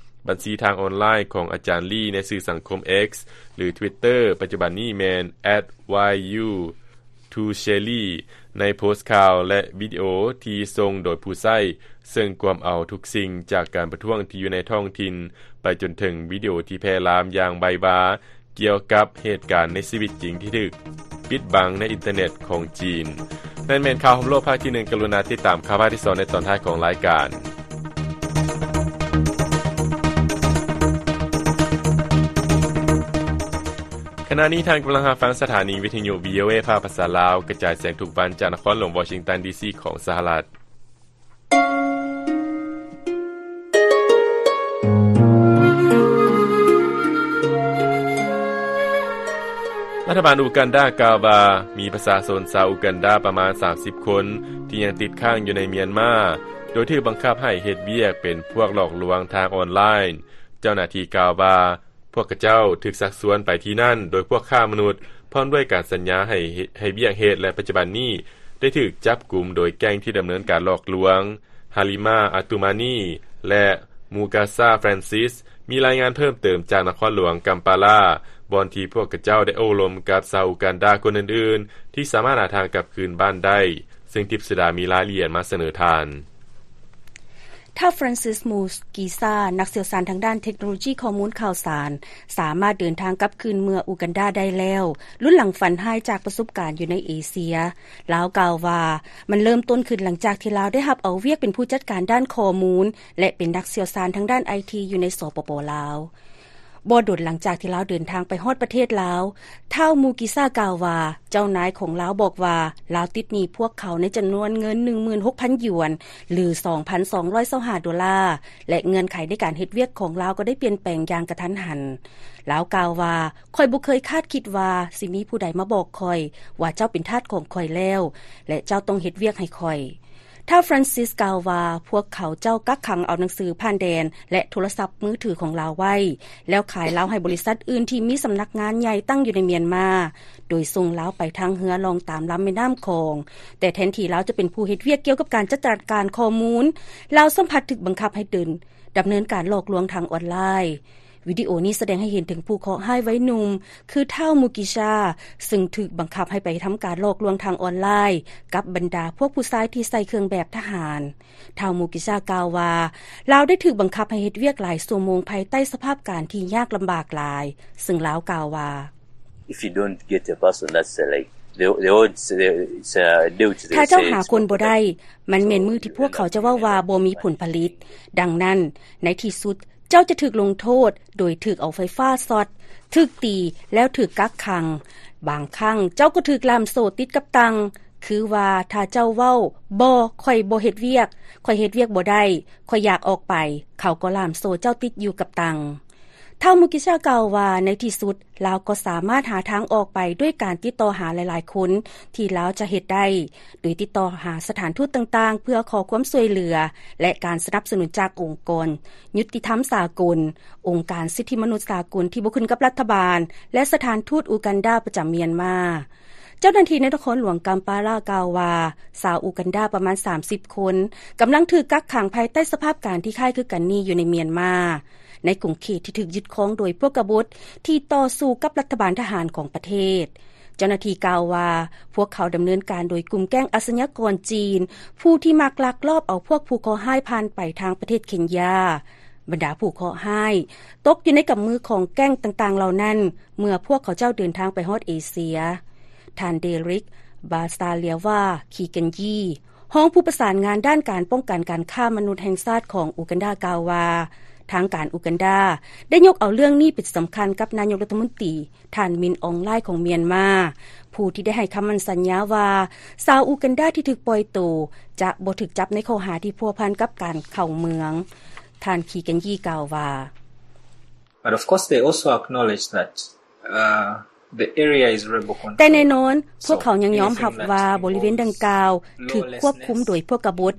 ບັນຊີທາງອອນລາຍຂອງອາຈານລີໃນສື່ສັງຄົມ X ຫຼື Twitter ປັດຈຸບັນນີ້ແມ່ນ ແອັດ ວາຍ ຢູ ທູເຊລີ ໃນໂພສຂ່າວ ແລະ ວິດີໂອທີ່ສົ່ງໂດຍຜູ້ໃຊ້, ເຊິ່ງກວມເອົາທຸກສິ່ງຈາກການປະທ້ວງທີ່ຢູ່ໃນທ້ອງຖິ່ນ ໄປຈົນເຖິງວິດີໂອທີ່ແຜ່ລາມຢ່າງໄວວາ ກ່ຽວກັບເຫດການໃນຊີວິດຈິງທີ່ຖືກປິດບັງໃນອິນເຕີເນັດຂອງຈີນ. ນັ້ນແມ່ນຂ່າວຮອບໂລກພາກທີໜຶ່ງ. ກະລຸນາຕິດຕາມຂ່າວພາກທີສອງໃນຕອນທ້າຍຂອງລາຍການ. ຂະນະນີ້ທ່ານກຳລັງຮັບຟັງສະຖານີວິທະຍຸ ວີ ໂອ ເອ ພາກພາສາລາວ ກະຈາຍສຽງທຸກວັນຈາກນະຄອນຫຼວງວໍຊິງຕັນ ດີ ຊີ ຂອງສະຫະລັດ. ລັດຖະບານອູກັນດາກ່າວວ່າ ມີປະຊາຊົນຊາວອູກັນດາປະມານສາມສິບຄົນ ທີ່ຍັງຕິດຄ້າງຢູ່ໃນມຽນມາ, ໂດຍຖືກບັງຄັບໃຫ້ເຮັດວຽກເປັນພວກຫຼອກລວງທາງອອນລາຍ. ເຈົ້າໜ້າທີ່ກ່າວວ່າ ພວກຂະເຈົ້າຖືກຊັກຊວນໄປທີ່ນັ້ນໂດຍພວກຄ້າມະນຸດ ພ້ອມດ້ວຍການສັນຍາໃຫ້ ໃຫ້ວຽກເຮັດ ແລະ ປັດຈຸບັນນີ້ໄດ້ຖືກຈັບກຸມໂດຍແກ້ງທີ່ດຳເນີນການຫຼອກລວງ ຮາລິມາ ອາຕູມານີ ແລະ ມູກາຊາ ແຟຣນຊິສ. ມີລາຍງານເພີ່ມເຕີມຈາກນະຄອນຫຼວງກຳປາລາ ບ່ອນທີ່ພວກຂະເຈົ້າໄດ້ໂອ້ລົມກັບຊາວອູກັນດາຄົນອື່ນໆ ທີ່ສາມາດຫາທາງກັບຄືນບ້ານໄດ້, ເຊິ່ງທິບສະດາມີລາຍລະອຽດມາສະເໜີທ່ານ. ທ້າວ Francis Mugisha ນັກຊ່ຽວຊານທາງດ້ານເທັກໂນໂລຢີຂໍ້ມູນຂ່າວສານ ສາມາດເດີນທາງກັບຄືນເມືອອູກັນດາໄດ້ແລ້ວ, ລຸນຫຼັງຝັນຮ້າຍຈາກປະສົບການຢູ່ໃນເອເຊຍ. ລາວກ່າວວ່າ ມັນເລີ່ມຕົ້ນຂຶ້ນຫຼັງຈາກທີ່ລາວໄດ້ຮັບເອົາວຽກເປັນຜູ້ຈັດການດ້ານຂໍ້ມູນ ແລະ ເປັນນັກຊ່ຽວຊານທາງດ້ານໄອທີຢູ່ໃນ ສປປ ລາວ. ບໍ່ດົນຫຼັງຈາກທີ່ລາວເດີນທາງໄປຮອດປະເທດລາວ, ທ້າວ Mugisha ກ່າວວ່າ ເຈົ້ານາຍຂອງລາວບອກວ່າ ລາວຕິດໜີ້ພວກເຂົາໃນຈຳນວນເງິນ ໜຶ່ງໝື່ນຫົກພັນ ຢວນ ຫຼື ສອງພັນສອງຮ້ອຍຊາວຫ້າໂດລາ ແລະ ເງື່ອນໄຂໃນການເຮັດວຽກຂອງລາວກໍໄດ້ປ່ຽນແປງຢ່າງກະທັນຫັນ. ລາວກ່າວວ່າ ຂ້ອຍບໍ່ເຄີຍຄາດຄິດວ່າຊິມີຜູ້ໃດມາບອກຂ້ອຍວ່າເຈົ້າເປັນທາດຂອງຂ້ອຍແລ້ວ ແລະ ເຈົ້າຕ້ອງເຮັດວຽກໃຫ້ຂ້ອຍ. ທ້າວ Francis ກ່າວວ່າ ພວກເຂົາເຈົ້າກັກຂັງເອົາໜັງສືຜ່ານແດນ ແລະ ໂທລະສັບມືຖືຂອງລາວໄວ້ ແລ້ວຂາຍລາວໃຫ້ບໍລິສັດອື່ນທີ່ມີສຳນັກງານໃຫຍ່ຕັ້ງຢູ່ໃນມຽນມາ, ໂດຍສົ່ງລາວໄປທາງເຮືອລ່ອງຕາມລຳແມ່ນ້ຳຂອງ. ແຕ່ແທນທີ່ລາວຈະເປັນຜູ້ເຮັດວຽກກ່ຽວກັບການຈັດການຂໍ້ມູນ, ລາວຊ້ຳພັດຖືກບັງຄັບໃຫ້ເດີນ ດຳເນີນການຫຼອກລວງທາງອອນລາຍ. ວິດີໂອນີ້ສະແດງໃຫ້ເຫັນເຖິງຜູ້ເຄາະຮ້າຍໄວໜຸ່ມ ຄືທ້າວ Mugisha ຊຶ່ງຖືກບັງຄັບໃຫ້ໄປທຳການຫຼອກລວງທາງອອນລາຍກັບບັນດາພວກຜູ້ຊາຍທີ່ໃສ່ເຄື່ອງແບບທະຫານ. ທ້າວ Mugisha ກ່າວວ່າ ລາວໄດ້ຖືກບັງຄັບໃຫ້ເຮັດວຽກຫຼາຍຊົ່ວໂມງພາຍໃຕ້ສະພາບການທີ່ຍາກລຳບາກຫຼາຍ, ຊຶ່ງລາວກ່າວວ່າ If you don't get a person, that's, uh, like, the, the odds, the, it's, uh, due to the ຖ້າເຈົ້າຫາຄົນບໍ່ໄດ້, ມັນແມ່ນມື້ທີ່ພວກເຂົາຈະເວົ້າວ່າບໍ່ມີຜົນຜະລິດ. ດັ່ງນັ້ນ, ໃນທີ່ສຸດ, ເຈົ້າຈະຖືກລົງໂທດໂດຍຖືກເອົາໄຟຟ້າຊັອດ, ຖືກຕີ ແລ້ວຖືກກັກຂັງ. ບາງຄັ້ງເຈົ້າກໍຖືກລ່າມໂສ້ຕິດກັບຕັ່ງ, ຄືວ່າຖ້າເຈົ້າເວົ້າ ບໍ່, ຂ້ອຍບໍ່ເຮັດວຽກ, ຂ້ອຍເຮັດວຽກບໍ່ໄດ້, ຂ້ອຍຢາກອອກໄປ, ເຂົາກໍລ່າມໂສ້ເຈົ້າຕິດຢູ່ກັບຕັ່ງ. ທ້າວ Mugisha ກ່າວວ່າ ໃນທີ່ສຸດ ລາວກໍສາມາດຫາທາງອອກໄປດ້ວຍການຕິດຕໍ່ຫາຫຼາຍໆຄົນທີ່ລາວຈະເຮັດໄດ້, ໂດຍຕິດຕໍ່ຫາສະຖານທູດຕ່າງໆເພື່ອຂໍຄວາມຊ່ວຍເຫຼືອ ແລະ ການສະໜັບສະໜູນຈາກອົງກອນຍຸຕິທຳສາກົນ, ອົງການສິດທິມະນຸດສາກົນທີ່ບໍ່ຂຶ້ນກັບລັດຖະບານ ແລະ ສະຖານທູດອູກັນດາປະຈຳມຽນມາ. ເຈົ້າໜ້າທີ່ໃນນະຄອນຫຼວງກຳປາລາກ່າວວ່າ ຊາວອູກັນດາປະມານສາມສິບຄົນ ກຳລັງຖືກກັກຂັງພາຍໃຕ້ສະພາບການທີ່ຄ້າຍຄືກັນນີ້ຢູ່ໃນມຽນມາ. ໃນຂົງເຂດທີ່ຖືກຍຶດຄອງໂດຍພວກກະບົດທີ່ຕໍ່ສູ້ກັບລັດຖະບານທະຫານຂອງປະເທດ. ເຈົ້າໜ້າທີ່ກ່າວວ່າ ພວກເຂົາດຳເນີນການໂດຍກຸ່ມແກ້ງອາຊະຍາກອນຈີນ ຜູ້ທີ່ມັກລັກລອບເອົາພວກຜູ້ເຄາະຮ້າຍຜ່ານໄປທາງປະເທດເຄນຢາ. ບັນດາຜູ້ເຄາະຮ້າຍຕົກຢູ່ໃນກຳມືຂອງແກ້ງຕ່າງໆເຫຼົ່ານັ້ນ ເມື່ອພວກເຂົາເຈົ້າເດີນທາງໄປຮອດເອເຊຍ. ທ່ານ Derek Basalirwa Kiganjee ຮອງຜູ້ປະສານງານດ້ານການປ້ອງກັນການຄ້າມະນຸດແຫ່ງຊາດຂອງອູກັນດາກ່າວວ່າ ທາງການອູກັນດາໄດ້ຍົກເອົາເລື່ອງນີ້ເປັນສຳຄັນກັບນາຍົກລັດຖະມົນຕີ ທ່ານ Min Aung Hlaing ຂອງມຽນມາ, ຜູ້ທີ່ໄດ້ໃຫ້ຄຳໝັ້ນສັນຍາວ່າ ຊາວອູກັນດາທີ່ຖືກປ່ອຍໂຕຈະບໍ່ຖືກຈັບໃນຂໍ້ຫາທີ່ພົວພັນກັບການເຂົ້າເມືອງ. ທ່ານ Kiganjee ກ່າວວ່າ But of course, they also acknowledge that, uh, the area is rebel controlled. ແຕ່ແນ່ນອນ, ພວກເຂົາຍັງຍອມຮັບວ່າບໍລິເວນດັ່ງກ່າວຖືກຄວບຄຸມໂດຍພວກກະບົດ.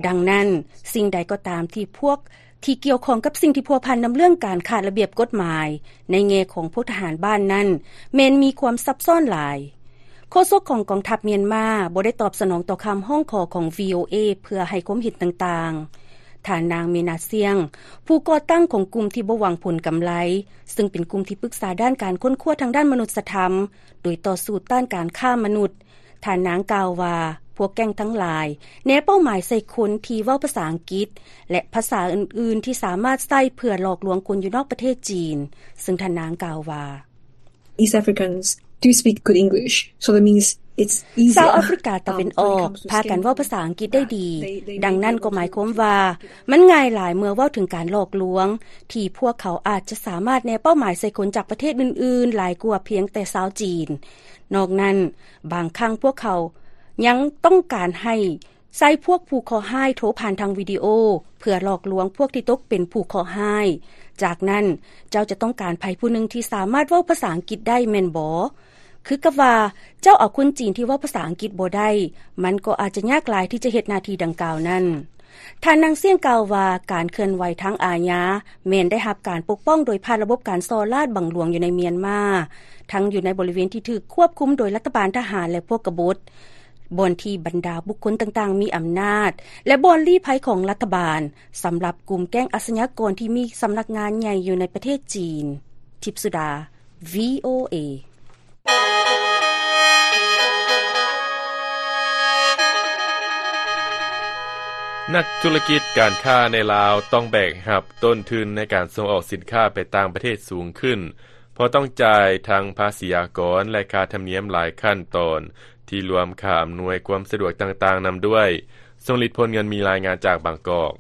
ດັ່ງນັ້ນ, ສິ່ງໃດກໍຕາມທີ່ພວກທີ່ກ່ຽວຂ້ອງກັບສິ່ງທີ່ພົວພັນນຳເລື່ອງການຂາດລະບຽບກົດໝາຍ ໃນແງ່ຂອງພວກທະຫານບ້ານນັ້ນ ແມ່ນມີຄວາມຊັບຊ້ອນຫຼາຍ. ໂຄສົກຂອງກອງທັບມຽນມາບໍ່ໄດ້ຕອບສະໜອງຕໍ່ຄຳຮ້ອງຂໍຂອງ VOA ເພື່ອໃຫ້ຄວາມເຫັນຕ່າງໆ. ທ່ານນາງ ເມນາຊຽງ ຜູ້ກໍ່ຕັ້ງຂອງກຸ່ມທີ່ບໍ່ຫວັງຜົນກຳໄລ, ຊຶ່ງເປັນກຸ່ມທີ່ປຶກສາດ້ານການຄົ້ນຄວ້າທາງດ້ານມະນຸດສະທຳ ໂດຍຕໍ່ສູ້ຕ້ານການຄ້າມະນຸດ, ທ່ານນາງກ່າວວ່າ ພວກແກ້ງທັງຫຼາຍແນເປົ້າໝາຍໃສ່ຄົນທີ່ເວົ້າພາສາອັງກິດ ແລະ ພາສາອື່ນໆທີ່ສາມາດໃຊ້ເພື່ອຫຼອກລວງຄົນຢູ່ນອກປະເທດຈີນ, ຊຶ່ງທ່ານນາງກ່າວວ່າ East Africans do speak good English, so that means it's easier. ຊາວອາຟຣິກາຕາເວັນອອກພາກັນເວົ້າພາສາອັງກິດໄດ້ດີ, ດັ່ງນັ້ນກໍໝາຍຄວາມວ່າມັນງ່າຍຫຼາຍເມື່ອເວົ້າເຖິງການຫຼອກລວງ ທີ່ພວກເຂົາອາດຈະສາມາດແນເປົ້າໝາຍໃສ່ຄົນຈາກປະເທດອື່ນໆຫຼາຍກວ່າພຽງແຕ່ຊາວຈີນ. ນອກນັ້ນ, ບາງຄັ້ງພວກເຂົາຍັງຕ້ອງການໃຫ້ໃຊ້ພວກຜູ້ເຄາະຮ້າຍໂທຜ່ານທາງວິດີໂອ ເພື່ອຫຼອກລວງພວກທີ່ຕົກເປັນຜູ້ເຄາະຮ້າຍ. ຈາກນັ້ນ, ເຈົ້າຈະຕ້ອງການໃຜຜູ້ໜຶ່ງທີ່ສາມາດເວົ້າພາສາອັງກິດໄດ້ແມ່ນບໍ່? ຄືກັບວ່າເຈົ້າເອົາຄົນຈີນທີ່ເວົ້າພາສາອັງກິດບໍ່ໄດ້, ມັນກໍອາດຈະຍາກຫຼາຍທີ່ຈະເຮັດໜ້າທີ່ດັ່ງກ່າວນັ້ນ. ທ່ານນາງຊຽງກ່າວວ່າ ການເຄື່ອນໄຫວທາງອາຍາແມ່ນໄດ້ຮັບການປົກປ້ອງໂດຍຜ່ານລະບົບການສໍ້ລາດບັງຫຼວງຢູ່ໃນມຽນມາ, ທັງຢູ່ໃນບໍລິເວນທີ່ຖືກຄວບຄຸມໂດຍລັດຖະບານທະຫານ ແລະ ພວກກະບົດ, ບ່ອນທີ່ບັນດາບຸກຄົນຕ່າງໆມີອຳນາດ ແລະ ບ່ອນລີ້ໄພຂອງລັດຖະບານ ສຳລັບກຸ່ມແກ້ງອາຊະຍາກອນທີ່ມີສຳນັກງານໃຫຍ່ຢູ່ໃນປະເທດຈີນ. ທິບສຸດາ VOA. ນັກທຸລະກິດການຄ້າໃນລາວຕ້ອງແບກຮັບຕົ້ນທຶນໃນການສົ່ງອອກສິນຄ້າໄປຕ່າງປະເທດສູງຂຶ້ນ ເພາະຕ້ອງຈ່າຍທັງພາສີອາກອນ ແລະ ຄ່າທຳນຽມຫຼາຍຂັ້ນຕອນ ທີ່ລວມຄ່າອຳນວຍຄວາມສະດວກຕ່າງໆນຳດ້ວຍ. ຊົງລິດ ພົນເງິນ ມີລາຍງານຈາກບາງກອກ.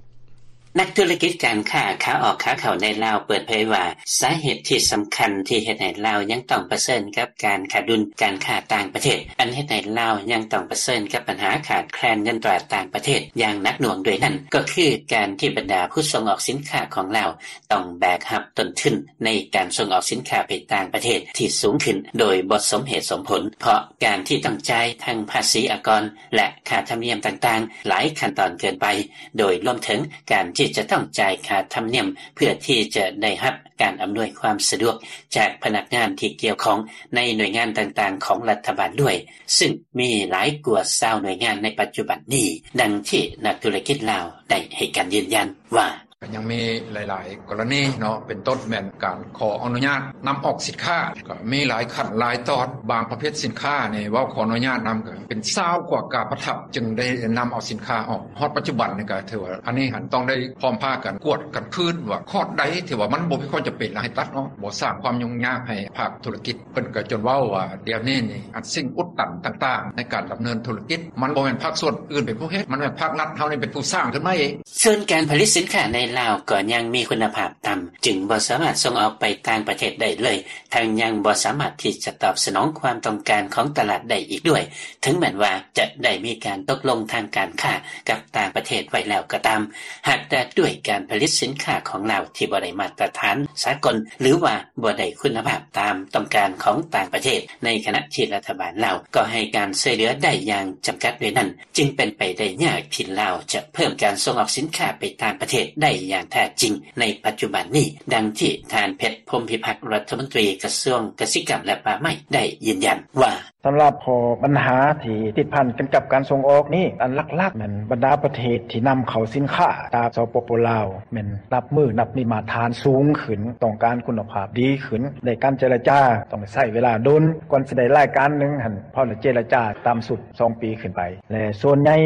ນັກທຸລະກິດການຄ້າຂາອອກຂາເຂົ້າໃນລາວເປີດເຜີຍວ່າ ສາເຫດທີ່ສຳຄັນທີ່ເຮັດໃຫ້ລາວຍັງຕ້ອງປະເຊີນກັບການຂາດດຸນການຄ້າຕ່າງປະເທດ ອັນເຮັດໃຫ້ລາວຍັງຕ້ອງປະເຊີນກັບບັນຫາຂາດແຄລນເງິນຕາຕ່າງປະເທດຢ່າງໜັກໜ່ວງດ້ວຍນັ້ນ ກໍຄືການທີ່ບັນດາຜູ້ສົ່ງອອກສິນຄ້າຂອງລາວ ຕ້ອງແບກຮັບຕົ້ນທຶນໃນການສົ່ງອອກສິນຄ້າໄປຕ່າງປະເທດທີ່ສູງຂຶ້ນໂດຍບໍ່ສົມເຫດສົມຜົນ ເພາະການທີ່ຕ້ອງຈ່າຍທັງພາສີອາກອນ ແລະ ຄ່າທຳນຽມຕ່າງໆຫຼາຍຂັ້ນຕອນເກີນໄປ ໂດຍລວມເຖິງການທີ່ຈະຕ້ອງຈ່າຍຄ່າທຳນຽມເພື່ອທີ່ຈະໄດ້ຮັບການອຳນວຍຄວາມສະດວກຈາກພະນັກງານທີ່ກ່ຽວຂ້ອງໃນໜ່ວຍງານຕ່າງໆຂອງລັດຖະບານດ້ວຍ ຊຶ່ງມີຫຼາຍກວ່າຊາວໜ່ວຍງານໃນປັດຈຸບັນນີ້, ດັ່ງທີ່ນັກທຸລະກິດລາວໄດ້ໃຫ້ການຢືນຢັນວ່າ: ກໍຍັງມີຫຼາຍໆກໍລະນີເນາະ ເປັນຕົ້ນແມ່ນການຂໍອະນຸຍາດນຳອອກສິນຄ້າ ກໍມີຫຼາຍຂັ້ນຫຼາຍຕອນ, ບາງປະເພດສິນຄ້ານີ້ເວົ້າຂໍອະນຸຍາດນຳ ກໍເປັນຊາວກວ່າກາບປະທັບ ຈຶ່ງໄດ້ນຳເອົາສິນຄ້າອອກ. ຮອດປັດຈຸບັນນີ້ກໍຖືວ່າ ອັນນີ້ຫັ້ນຕ້ອງໄດ້ພ້ອມພາກັນກວດກັນຄືນວ່າ ຄອດໃດທີ່ວ່າມັນບໍ່ມີຄວາມຈຳເປັນ ແລ້ວໃຫ້ຕັດອອກ, ບໍ່ສ້າງຄວາມຫຍຸ້ງຍາກໃຫ້ພາກທຸລະກິດ. ເພິ່ນກໍຈົນເວົ້າວ່າ ດຽວນີ້ນີ້ ອັນສິ່ງອຸດຕັນຕ່າງໆໃນການດຳເນີນທຸລະກິດ ມັນບໍ່ແມ່ນພາກສ່ວນອື່ນເປັນຜູ້ເຮັດ, ມັນແມ່ນພາກລັດເຮົານີ້ເປັນຜູ້ສ້າງຂຶ້ນມາເອງ. ສ່ວນການຜະລິດສິນຄ້າໃນລາວກໍຍັງມີຄຸນນະພາບຕ່ຳ, ຈຶ່ງບໍ່ສາມາດສົ່ງອອກໄປຕ່າງປະເທດໄດ້ເລີຍ, ທັງຍັງບໍ່ສາມາດທີ່ຈະຕອບສະໜອງຄວາມຕ້ອງການຂອງຕະຫຼາດໄດ້ອີກດ້ວຍ, ເຖິງແມ່ນວ່າຈະໄດ້ມີການຕົກລົງທາງການຄ້າກັບຕ່າງປະເທດໄວ້ແລ້ວກໍຕາມ, ຫາກແຕ່ດ້ວຍການຜະລິດສິນຄ້າຂອງລາວທີ່ບໍ່ໄດ້ມາດຕະຖານສາກົນ ຫຼືວ່າບໍ່ໄດ້ຄຸນນະພາບຕາມຕ້ອງການຂອງຕ່າງປະເທດ, ໃນຂະນະທີ່ລັດຖະບານລາວກໍໃຫ້ການຊ່ວຍເຫຼືອໄດ້ຢ່າງຈຳກັດດ້ວຍນັ້ນ, ຈຶ່ງເປັນໄປໄດ້ຍາກທີ່ລາວຈະເພີ່ມການສົ່ງອອກສິນຄ້າໄປຕ່າງປະເທດໄດ້ຢ່າງແທ້ຈິງໃນປັດຈຸບັນນີ້, ດັ່ງທີ່ທ່ານ ເພັດ ພົມພິພັກ ລັດຖະມົນຕີກະຊວງກະສິກຳ ແລະ ປ່າໄມ້ ໄດ້ຢືນຢັນວ່າ: ສຳລັບຂໍ້ບັນຫາທີ່ຕິດພັນກັນກັບການສົ່ງອອກນີ້, ອັນຫຼັກໆແມ່ນບັນດາປະເທດທີ່ນຳເຂົ້າສິນຄ້າຈາກ ສປປ ລາວ ແມ່ນນັບມື້ນັບມີມາດຕະຖານສູງຂຶ້ນ, ຕ້ອງການຄຸນນະພາບດີຂຶ້ນ, ໃນການເຈລະຈາຕ້ອງໃຊ້ເວລາດົນ ກ່ອນຊິໄດ້ລາຍການໜຶ່ງຫັ້ນ, ພໍໄດ້ເຈລະຈາຕ່ຳສຸດສອງປີຂຶ້ນໄປ ແລະ ສ່ວນໃຫຍ່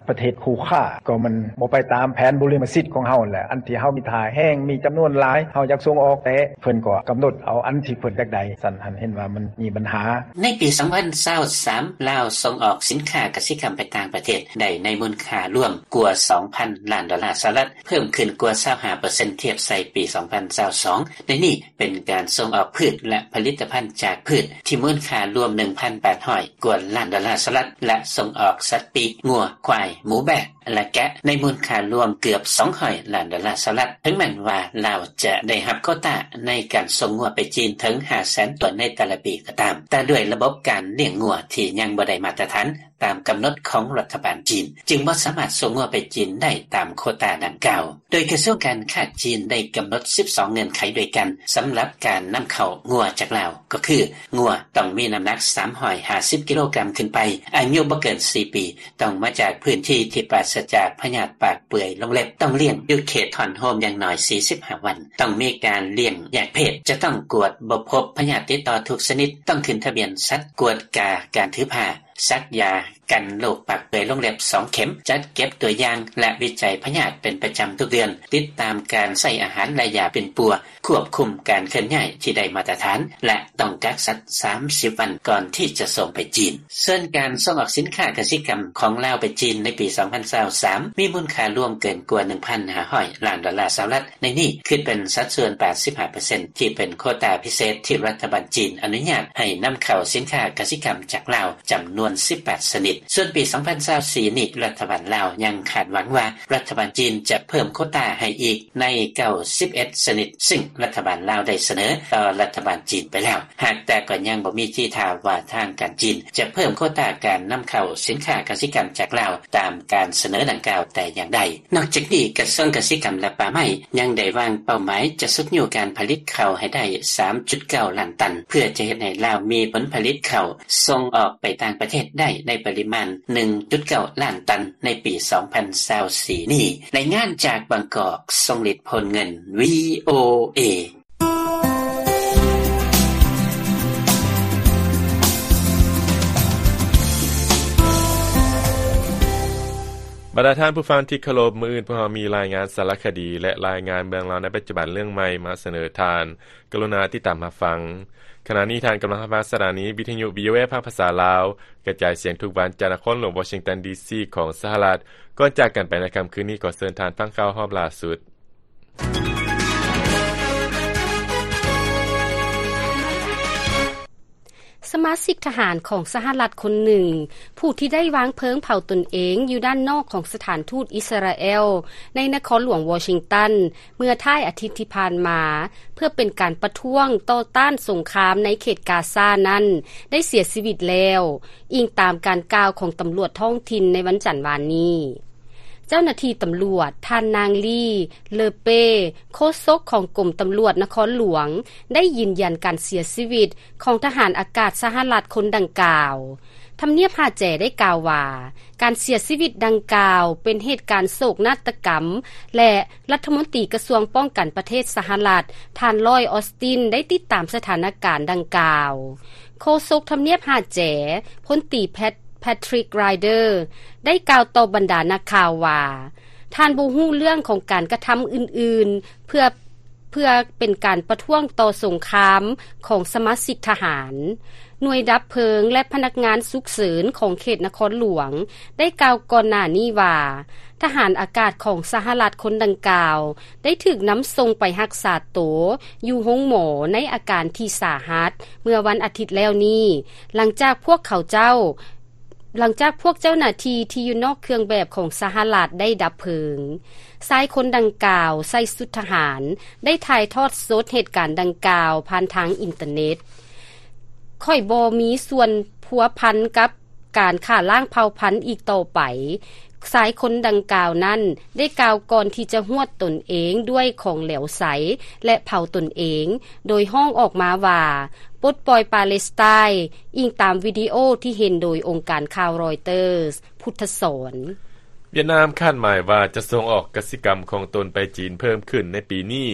ປະເທດຄູ່ຄ້າກໍມັນບໍ່ໄປຕາມແຜນບຸລິມະສິດຂອງເຮົາແຫຼະ, ອັນທີ່ເຮົາມີທ່າແຮງ ມີຈຳນວນຫຼາຍ ເຮົາຢາກສົ່ງອອກ ແຕ່ເພິ່ນກໍກຳນົດເອົາອັນທີ່ເພິ່ນຢາກໄດ້, ຊັ້ນຫັ້ນເຫັນວ່າມັນມີບັນຫາ. ໃນປີສອງພັນຊາວສາມ ລາວສົ່ງອອກສິນຄ້າກະສິກຳໄປຕ່າງປະເທດໄດ້ໃນມູນຄ່າລວມກວ່າສອງພັນລ້ານໂດລາສະຫະລັດ, ເພີ່ມຂຶ້ນກວ່າຊາວຫ້າເປີເຊັນ ທຽບໃສ່ປີສອງພັນຊາວສອງ. ໃນນີ້ເປັນການສົ່ງອອກພືດ ແລະ ຜະລິດຕະພັນຈາກພືດທີ່ມູນຄ່າລວມໜຶ່ງພັນແປດຮ້ອຍກວ່າລ້ານໂດລາສະຫະລັດ ແລະ ສົ່ງອອກສັດປີກ, ງົວ, ຄວາຍ, ໝູ, ແບ້ ແລະ ແກະ ໃນມູນຄ່າລວມເກືອບສອງຮ້ອຍລ້ານໂດລາສະຫະລັດ. ເຖິງແມ່ນວ່າລາວຈະໄດ້ຮັບໂຄຕາໃນການສົ່ງງົວໄປຈີນເຖິງຫ້າແສນຕົວໃນແຕ່ລະປີກໍຕາມ, ແຕ່ດ້ວຍລະບົບການລ້ຽງງົວທີ່ຍັງບໍ່ໄດ້ມາດຕະຖານຕາມກຳນົດຂອງລັດຖະບານຈີນ, ຈຶ່ງບໍ່ສາມາດສົ່ງງົວໄປຈີນໄດ້ຕາມໂຄຕາດັ່ງກ່າວ. ໂດຍກະຊວງການຄ້າຈີນໄດ້ກຳນົດສິບສອງເງື່ອນໄຂດ້ວຍກັນ ສຳລັບການນຳເຂົ້າງົວຈາກລາວ, ກໍຄື ງົວຕ້ອງມີນ້ຳໜັກສາມຮ້ອຍຫ້າສິບກິໂລກຣາມຂຶ້ນໄປ, ອາຍຸບໍ່ເກີນສີ່ປີ, ຕ້ອງມາຈາກພື້ນທີ່ທີ່ປາສະຈາກພະຍາດປາກເປື່ອຍລົງເລັບ, ຕ້ອງລ້ຽງຢູ່ເຂດຮ້ອນໂຮມຢ່າງໜ້ອຍສີ່ສິບຫ້າວັນ, ຕ້ອງມີການລ້ຽງແຍກເພດ, ຈະຕ້ອງກວດບໍ່ພົບພະຍາດຕິດຕໍ່ທຸກຊະນິດ, ຕ້ອງຂຶ້ນທະບຽນສັດ, ກວດກາການຖືພາ, ສັກຢາກັນໂລກປາກເປື່ອຍລົງເລັບສອງເຂັມ, ຈັດເກັບຕົວຢ່າງ ແລະ ວິໄຈພະຍາດເປັນປະຈຳທຸກເດືອນ, ຕິດຕາມການໃຊ້ອາຫານ ແລະ ຢາປິ່ນປົວ, ຄວບຄຸມການເຄື່ອນຍ້າຍທີ່ໄດ້ມາດຕະຖານ ແລະ ຕ້ອງກັກສັດສາມສິບວັນກ່ອນທີ່ຈະສົ່ງໄປຈີນ. ສ່ວນການສົ່ງອອກສິນຄ້າກະສິກຳຂອງລາວໄປຈີນໃນປີສອງພັນຊາວສາມ ມີມູນຄ່າລວມເກີນກວ່າໜຶ່ງພັນຫ້າຮ້ອຍລ້ານໂດລາສະຫະລັດ, ໃນນີ້ຄິດເປັນສັດສ່ວນແປດສິບຫ້າເປີເຊັນ ທີ່ເປັນໂຄຕາພິເສດທີ່ລັດຖະບານຈີນອະນຸຍາດໃຫ້ນຳເຂົ້າສິນຄ້າກະສິກຳຈາກລາວ ຈຳນວນສິບແປດຊະນິດ. ສ່ວນປີສອງພັນຊາວສີ່ນີ້ ລັດຖະບານລາວຍັງຄາດຫວັງວ່າ ລັດຖະບານຈີນຈະເພີ່ມໂຄຕາໃຫ້ອີກໃນເກົ້າສິບເອັດຊະນິດ, ຊຶ່ງລັດຖະບານລາວໄດ້ສະເໜີຕໍ່ລັດຖະບານຈີນໄປແລ້ວ, ຫາກແຕ່ກໍຍັງບໍ່ມີທີທ່າວ່າທາງການຈີນຈະເພີ່ມໂຄຕາການນຳເຂົ້າສິນຄ້າກະສິກຳຈາກລາວຕາມການສະເໜີດັ່ງກ່າວແຕ່ຢ່າງໃດ. ນອກຈາກນີ້, ກະຊວງກະສິກຳ ແລະ ປ່າໄມ້ ຍັງໄດ້ວາງເປົ້າໝາຍຈະຊຸກຍູ້ການຜະລິດເຂົ້າໃຫ້ໄດ້ສາມຈຸດເກົ້າລ້ານຕັນ, ເພື່ອຈະເຮັດໃຫ້ລາວມີຜົນຜະລິດເຂົ້າສົ່ງອອກໄປຕ່າງປະເທດໄດ້ໃນປະລິມານໜຶ່ງຈຸດເກົ້າລ້ານຕັນໃນປີສອງພັນຊາວສີ່ນີ້. ລາຍງານຈາກບາງກອກ, ຊົງລິດ ໂພນເງິນ ວີ ໂອ ເອ. ບັນດາທ່ານຜູ້ຟັງທີ່ເຄົາລົບ, ມື້ອື່ນພວກເຮົາມີລາຍງານສາລະຄະດີ ແລະ ລາຍງານເມືອງລາວໃນປັດຈຸບັນເລື່ອງໃໝ່ມາສະເໜີທ່ານ. ກະລຸນາຕິດຕາມຮັບຟັງ. ຂະນະນີ້ທ່ານກຳລັງຮັບຟັງສະຖານີວິທະຍຸ ວີໂອເອ ພາກພາສາລາວ, ກະຈາຍສຽງທຸກວັນຈາກນະຄອນຫຼວງວໍຊິງຕັນ ດີຊີ ຂອງສະຫະລັດ. ກ່ອນຈາກກັນໄປໃນຄ່ຳຄືນນີ້, ຂໍເຊີນທ່ານຟັງຂ່າວຮອບລ່າສຸດ. ສະມາຊິກທະຫານຂອງສະຫະລັດຄົນໜຶ່ງ ຜູ້ທີ່ໄດ້ວາງເພີງເຜົາຕົນເອງຢູ່ດ້ານນອກຂອງສະຖານທູດອິດສະຣາແອລໃນນະຄອນຫຼວງວໍຊິງຕັນ ເມື່ອທ້າຍອາທິດທີ່ຜ່ານມາ ເພື່ອເປັນການປະທ້ວງຕໍ່ຕ້ານສົງຄາມໃນເຂດກາຊານັ້ນ ໄດ້ເສຍຊີວິດແລ້ວ, ອີງຕາມການກ່າວຂອງຕຳຫຼວດທ້ອງຖິ່ນໃນວັນຈັນວານນີ້. ເຈົ້າໜ້າທີ່ຕຳຫຼວດ ທ່ານນາງ ລີ ເລີເປ້ ໂຄສົກຂອງກົມຕຳຫຼວດນະຄອນຫຼວງ ໄດ້ຢືນຢັນການເສຍຊີວິດຂອງທະຫານອາກາດສະຫະລັດຄົນດັ່ງກ່າວ. ທຳນຽບຫາແຈໄດ້ກ່າວວ່າ ການເສຍຊີວິດດັ່ງກ່າວເປັນເຫດການໂສກນາດຕະກຳ ແລະ ລັດຖະມົນຕີກະຊວງປ້ອງກັນປະເທດສະຫະລັດ ທ່ານ ລອຍ ອອສຕິນ ໄດ້ຕິດຕາມສະຖານະການດັ່ງກ່າວ. ໂຄສົກທຳນຽບຫາແຈ ພົນຕີ ແພັດ ແພັດທຣິກ ຣາຍເດີ ໄດ້ກ່າວຕໍ່ບັນດານັກຂ່າວວ່າ ທ່ານບໍ່ຮູ້ເລື່ອງຂອງການກະທຳອື່ນໆ ເພື່ອ ເພື່ອເປັນການປະທ້ວງຕໍ່ສົງຄາມຂອງສະມາຊິກທະຫານ. ໜ່ວຍດັບເພີງ ແລະ ພະນັກງານສຸກເສີນຂອງເຂດນະຄອນຫຼວງ ໄດ້ກ່າວກ່ອນໜ້ານີ້ວ່າ ທະຫານອາກາດຂອງສະຫະລັດຄົນດັ່ງກ່າວ ໄດ້ຖືກນຳສົ່ງໄປຮັກສາໂຕຢູ່ໂຮງໝໍໃນອາການທີ່ສາຫັດ ເມື່ອວັນອາທິດແລ້ວນີ້ ຫຼັງຈາກພວກເຂົາເຈົ້າ ຫຼັງຈາກພວກເຈົ້າໜ້າທີ່ທີ່ຢູ່ນອກເຄື່ອງແບບຂອງສະຫະລັດໄດ້ດັບເພີງ. ຊາຍຄົນດັ່ງກ່າວໃສ່ຊຸດທະຫານ ໄດ້ຖ່າຍທອດສົດເຫດການດັ່ງກ່າວຜ່ານທາງອິນເຕີເນັດ. ຂ້ອຍບໍ່ມີສ່ວນພົວພັນກັບການຂ້າລ້າງເຜົ່າພັນອີກຕໍ່ໄປ. ຊາຍຄົນດັ່ງກ່າວນັ້ນໄດ້ກ່າວກ່ອນທີ່ຈະຫວດຕົນເອງດ້ວຍຂອງເຫຼວໃສ ແລະ ເຜົາຕົນເອງ, ໂດຍຮ້ອງອອກມາວ່າ ປົດປ່ອຍປາເລສໄຕ, ອີງຕາມວິດີໂອທີ່ເຫັນໂດຍອົງການຂ່າວຣອຍເຕີສ. ພຸດທະສອນ. ຫວຽດນາມຄາດໝາຍວ່າຈະສົ່ງອອກກະສິກຳຂອງຕົນໄປຈີນເພີ່ມຂຶ້ນໃນປີນີ້,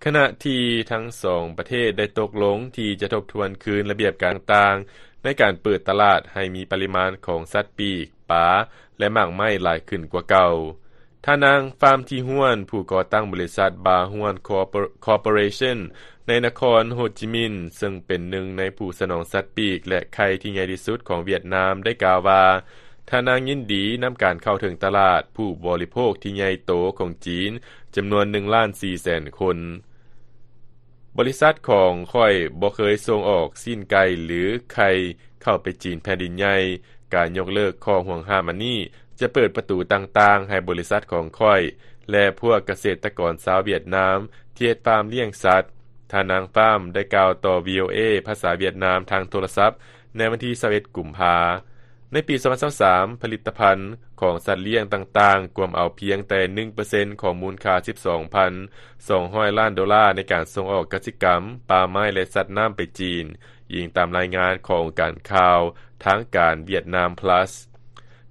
ຂະນະທີ່ທັງສອງປະເທດໄດ້ຕົກລົງທີ່ຈະທົບທວນຄືນລະບຽບການຕ່າງໆ ໃນການເປີດຕະຫຼາດໃຫ້ມີປະລິມານຂອງສັດປີກ, ປາ ແລະ ໝາກໄມ້ຫຼາຍຂຶ້ນກວ່າເກົ່າ. ທ່ານນາງ ຟາມ ທີຮວນ ຜູ້ກໍ່ຕັ້ງບໍລິສັດ ບາຮວນ ຄໍເປີເຣຊັນ ໃນນະຄອນໂຮຈິມິນ ເຊິ່ງເປັນໜຶ່ງໃນຜູ້ສະໜອງສັດປີກ ແລະ ໄຂ່ທີ່ໃຫຍ່ທີ່ສຸດຂອງຫວຽດນາມ ໄດ້ກ່າວວ່າ ທ່ານນາງຍິນດີນຳການເຂົ້າເຖິງຕະຫຼາດຜູ້ບໍລິໂພກທີ່ໃຫຍ່ໂຕຂອງຈີນ ຈຳນວນໜຶ່ງລ້ານສີ່ແສນຄົນ. ບໍລິສັດຂອງຂ້ອຍບໍ່ເຄີຍສົ່ງອອກຊີ້ນໄກ່ ຫຼື ໄຂ່ເຂົ້າໄປຈີນແຜ່ນດິນໃຫຍ່. ການຍົກເລີກຂໍ້ຫ່ວງຫ້າມອັນນີ້ ຈະເປີດປະຕູຕ່າງໆໃຫ້ບໍລິສັດຂອງຂ້ອຍ ແລະ ພວກກະເສດຕະກອນຊາວຫວຽດນາມທີ່ເຮັດຟາມລ້ຽງສັດ, ທ່ານນາງ ຟາມ ໄດ້ກ່າວຕໍ່ ວີໂອເອ ພາສາຫວຽດນາມທາງໂທລະສັບ ໃນວັນທີຊາວເອັດ ກຸມພາ. ໃນປີສອງພັນຊາວສາມ ຜະລິດຕະພັນຂອງສັດລ້ຽງຕ່າງໆ ກວມເອົາພຽງແຕ່ໜຶ່ງເປີເຊັນຂອງມູນຄ່າສິບສອງພັນສອງຮ້ອຍລ້ານໂດລາໃນການສົ່ງອອກກະສິກຳ, ປ່າໄມ້ ແລະ ສັດນ້ຳໄປຈີນ, ອີງຕາມລາຍງານຂອງອົງການຂ່າວທາງການຫວຽດນາມ ພລັສ.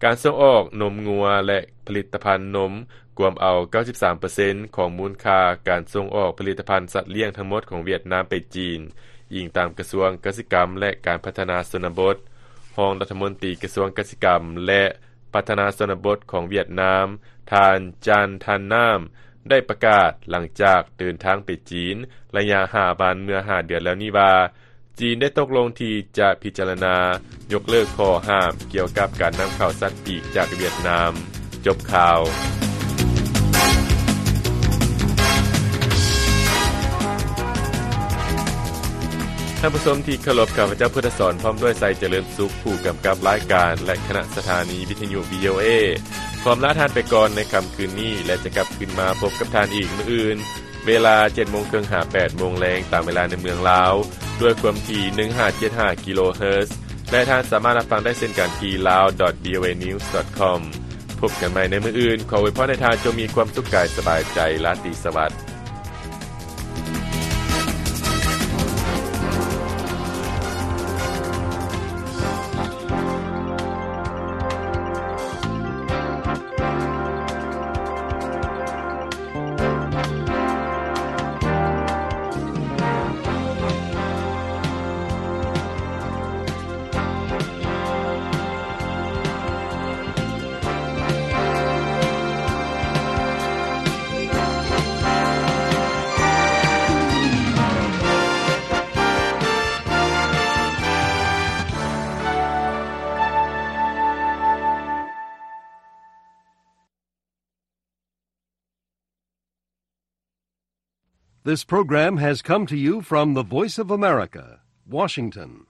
ການສົ່ງອອກນົມງົວ ແລະ ຜະລິດຕະພັນນົມ ກວມເອົາເກົ້າສິບສາມເປີເຊັນຂອງມູນຄ່າການສົ່ງອອກຜະລິດຕະພັນສັດລ້ຽງທັງໝົດຂອງຫວຽດນາມໄປຈີນ, ອີງຕາມກະຊວງກະສິກຳ ແລະ ການພັດທະນາຊົນນະບົດ. ຮອງລັດຖະມົນຕີກະຊວງກະສິກຳ ແລະ ພັດທະນາຊົນນະບົດຂອງຫວຽດນາມ, ທ່ານ ຈານ ທັນນາມ ໄດ້ປະກາດຫຼັງຈາກເດີນທາງໄປຈີນໄລຍະຫ້າວັນເມື່ອຫ້າເດືອນແລ້ວນີ້ວ່າ ຈີນໄດ້ຕົກລົງທີ່ຈະພິຈາລະນາຍົກເລີກຂໍ້ຫ້າມກ່ຽວກັບການນຳເຂົ້າສັດປີກຈາກຫວຽດນາມ. ຈົບຂ່າວ. ທ່ານຜູ້ຊົມທີ່ເຄົາລົບ, ຂ້າພະເຈົ້າ ພຸດທະສອນ ພ້ອມດ້ວຍ ໄຊຈະເລີນສຸກ, ຜູ້ກຳກັບລາຍການ ແລະ ຄະນະສະຖານີວິທະຍຸ ວີໂອເອ ຂໍອຳລາທ່ານໄປກ່ອນໃນຄ່ຳຄືນນີ້ ແລະ ຈະກັບຄືນມາພົບກັບທ່ານອີກມື້ອື່ນ ເວລາເຈັດໂມງເຄິ່ງຫາແປດໂມງແລງ ຕາມເວລາໃນເມືອງລາວ ດ້ວຍຄວາມຖີ່ໜຶ່ງຫ້າເຈັດຫ້າກິໂລເຮີດ ແລະ ທ່ານສາມາດຮັບຟັງໄດ້ເຊັ່ນກັນທີ່ ລາວ ດອດ ວີໂອເອ ນິວສ໌ ດອດ ຄອມ. ພົບກັນໃໝ່ໃນມື້ອື່ນ, ຂໍອວຍພອນໃຫ້ທ່ານຈົ່ງມີຄວາມສຸກກາຍສະບາຍໃຈ, ລາຕີສະຫວັດ. This program has come to you from the Voice of America, Washington.